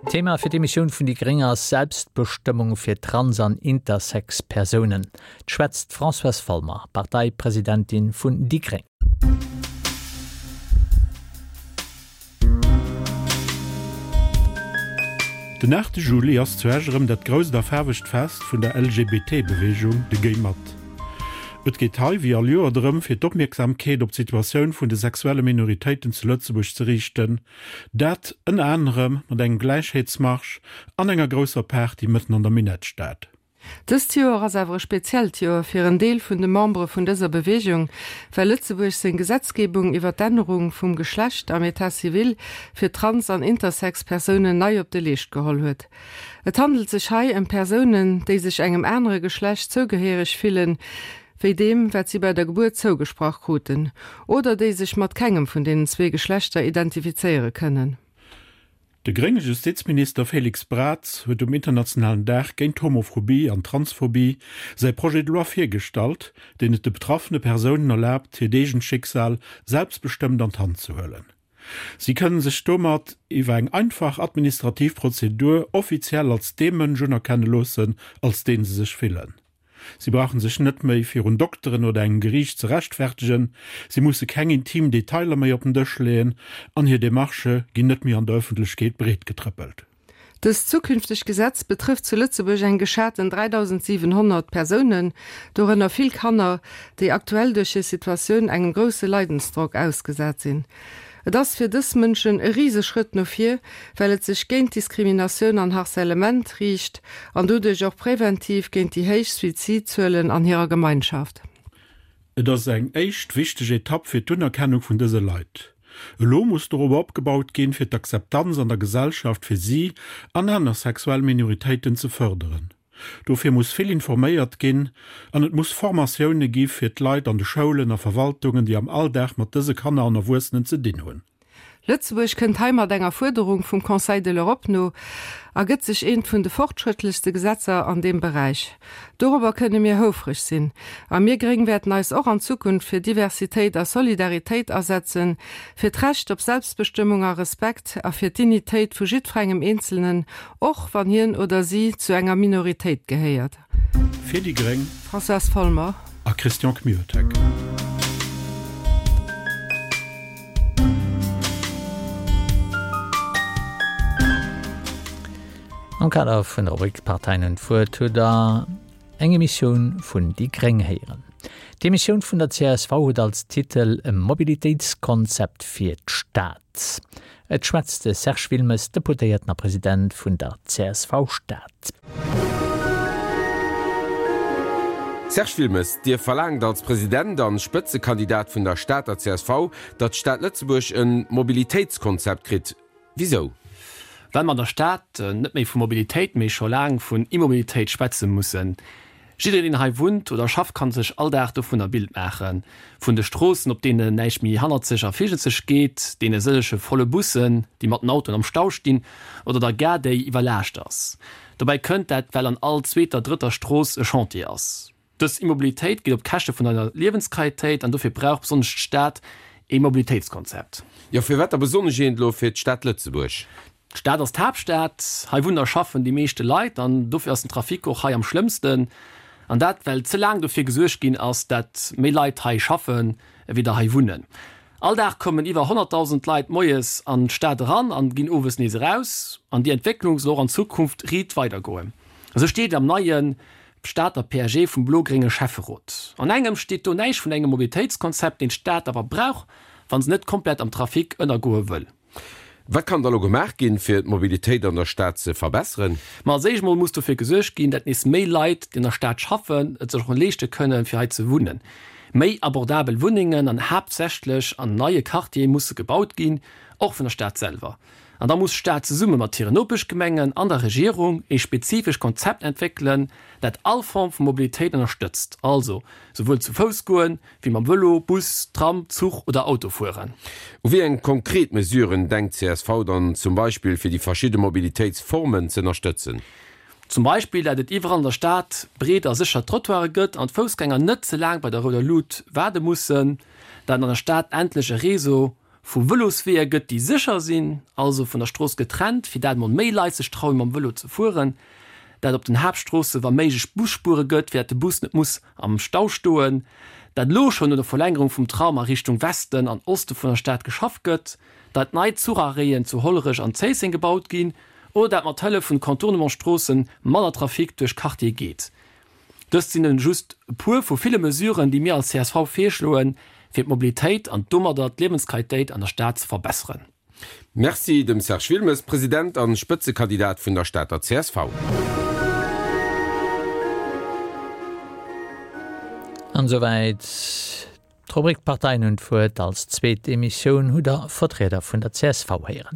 Thema fir d'Emissioun vun déi gréng ass Selbstbestëmmung fir Trans an Intersex Persounen. 't schwätzt d'Françoise Folmer, Parteipresidentin vun déi gréng. Den 8 Juli ass zu Esch erëm dat grousst a faarwegt Fest vun der LGBT-Beweegung, de Géi mat. Et geet hei, wéi all Joer, drëm, fir d'Opmierksamkeet op d'Situatioun vun de sexuelle Minoritéiten zu Lëtzebuerg ze riichten, Dat ënner anerem mat engem Gläichheetsmarsch an enger grousser Party mëtten an der Minettstad. Dëst Joer ass awer e speziellt Joer fir en Deel vun de Membere vun dëser Beweegung, well Lëtzebuerg seng Gesetzgebung iwwer d'Ännerung vum Geschlecht am Etat civil fir trans an intersex Persounen nei op de Leescht geholl huet. Et handelt sech hei ëm Persounen, déi sech engem anere Geschlecht zougehéiereg fillen, wéi deem, wat si bei der Gebuert zougesprach kruten, oder déi sech mat kengem vun deenen zwee Geschlechter identifizéiere kënnen. De grénge Justizminister Félix Braz huet um internationalen Dag géint d'Homophobie an d'Transphobie säi Projet de loi virgestallt, deen et de betraffene Persounen erlaabt, hiert eegent Schicksal selbstbestëmmt an d'Hand ze huelen. Si kënnen sech domat iwwer eng einfach administrativ Prozedur offiziell als dee Mënsch unerkenne loossen, als deen se sech fillen. Si brauchen sech net méi virun Dokteren oder engem Geriicht ze rechtfertegen, si musse keng intim Detailer méi op den Dësch leeën an hir Demarchë ginn net méi an der Ëffentlechkeet breetgetrëppelt. Dëst zukünftegt Gesetz betrëfft zu Lëtzebuerg eng geschaten 3.700 Persounen, dorënner vill Kanner, déi aktuell duerch hir Situatioun engem grousse Leidensdrock ausgesat sinn. Et ass fir dës Mënschen e Riseschrëtt no vir, well et sech géint Diskriminatioun an Harcèlement riicht an doduerch och präventiv géint déi héich Suizidzuelen an hirer Gemeinschaft. Et ass eng éischt wichteg Etapp fir d'Unerkennung vun dëse Leit. Elo muss dorobber opgebaut ginn, fir d'Akzeptanz an der Gesellschaft fir si an aner sexuell Minoritéiten ze fërderen. Dofir muss vill informéiert ginn an et muss Formatioune gi fir d'Leit an de Schoulen a Verwaltungen, déi am Alldag mat dëse Kanner an Erwuessenen ze dinn hunn. Lëtzebuerg kënnt hei mat enger Fuerderung vum Conseil de l'Europe no a gëtt sech eent vun de fortschrëttlechste Gesetzer an deem Beräich. Dorobber kënne mir houfreg sinn. A mir Gréng wäerten eis och an Zukunft fir Diversitéit a Solidaritéit asetzen, fir d'Recht op Selbstbestëmmung a Respekt a fir d'Dignitéit vu jiddferengem Eenzelnen, Och wann hien oder si zu enger Minoritéit gehéiert. Fir déi gréng. Françoise Folmer. A Christian Kmiotek. Am Kader vun der Rubrik Parteien un d'Wuert hutt der eng Emissioun vun déi gréng héieren. D'Emissioun vun der csv huet als Titel E Mobilitéitskonzept fir d'Stad. Et schwätzt de Serge Wilmes, Deputéierten a President vun der csv Stad. Serge Wilmes, Dir verlaangt als President an Spëtzekandidat vun der Stater csv, datt d'Stad Lëtzebuerg en Mobilitéitskonzept kritt. Wisou? Well mer an der Stad net méi vu Mobilitéit, mee scho laang vun Immobilitéit schwätze mussen. Jiddereen deen hei wunnt oder schafft kann sech all Dag dovun e Bild maachen. Vun de Stroossen op deenen näischt méi hannerzeg a virjezeg geet, deene sëllege volle Bussen déi mat den Autoen am Stau stinn oder der Gare déi iwwerlaascht ass. Dobäi kënnt dat well an all zweeter, drëtter Strooss e Chantier ass. Dës Immobilitéit geet op Käschte vun eiser Liewensqualitéit an dofir brauch besonnesch d'Stad ee Mobilitéitskonzept. Jo, firwat da besonnesch eent elo fir d'Stad Lëtzebuerg? D'Stad ass d'Haaptstad, hei wunnen a schaffen déi meeschte Leit an dofir ass den Trafic och hei am schlëmmsten. An dat well ze laang dofir gesuergt ginn ass, dat méi Leit hei schaffen ewéi der hei wunnen. All Dag kommen iwwer 100.000 Leit moies an d'Stad eran an ginn owes nees eraus. An déi Entwécklung soll och an Zukunft riit weidergoen. Esou steet et am neie Stater PAG vum blo-grénge Schäfferot. An engem steet do näischt vun engem Mobilitéitskonzept, deen d'Stad awer brauch, wa se net komplett am Trafic ënnergoe wëll. Wat kann da lo gemaach ginn, fir d'Mobilitéit an der Stad ze verbesseren? Ma als éischt mol muss dofir gesuergt ginn, dat nees méi Leit, déi an der Stad schaffen, et sech och leeschte kënnen, fir hei ze wunnen. Méi abordabel Wunnengen an haaptsächlech an neie Quartiere musse gebaut ginn, och vun der Stad selwer. An da muss d'Stad zesumme mat hiren Nopeschgemengen an der Regierung ee spezifesch Konzept entwéckelen, dat all Form vu Mobilitéit ënnerstëtzt, also souwuel zu Fouss goen, Wéi mam Vëlo, Bus, Tram, Zuch oder Auto fueren. U wéi eng konkret Mesuren denkt csv dann zum Beispill fir déi verschidde Mobilitéitsformen z'ënnerstëtzen? Zum Beispill dat et iwwerall an der Stad breet a sécher Trottoire gëtt an d'Foussgänger net ze laang bei der rouder Lut waarde mussen, dat an der Stad endlech e Réseau. vu Vëlosweeër gëtt, déi sécher sinn, also vun der Strooss getrennt, fir dat emol méi Leit sech trauen, mam Vëlo ze fueren, dat op den Haaptstroosse wa méiglech Busspuere gëtt, fir dat de Bus net muss am Stau stoen, dat elo schonn un der Verlängerung vum Tram a Richtung Westen an Oste vun der Stad geschafft gëtt, dat nei Zucharréien zu Hollerech an Zéisseng gebaut ginn oder dat mat Hëllef vun Contournementsstroosse manner Trafic duerch Quartiere geet. Dëst sinn nëmmen just e puer vu ville Mesuren, déi mir als csv virschloen, fir d'Mobilitéit an domadder d'Liewensqualitéit an der Stad ze verbesseren. Merci dem Serge Wilmes, President an Spëtzekandidat vun der Stater csv. An esouwäit d'Rubrik D'Parteien hunn d'Wuert. Als zweet Emissioun hutt der Vertrieder vun der csv héieren.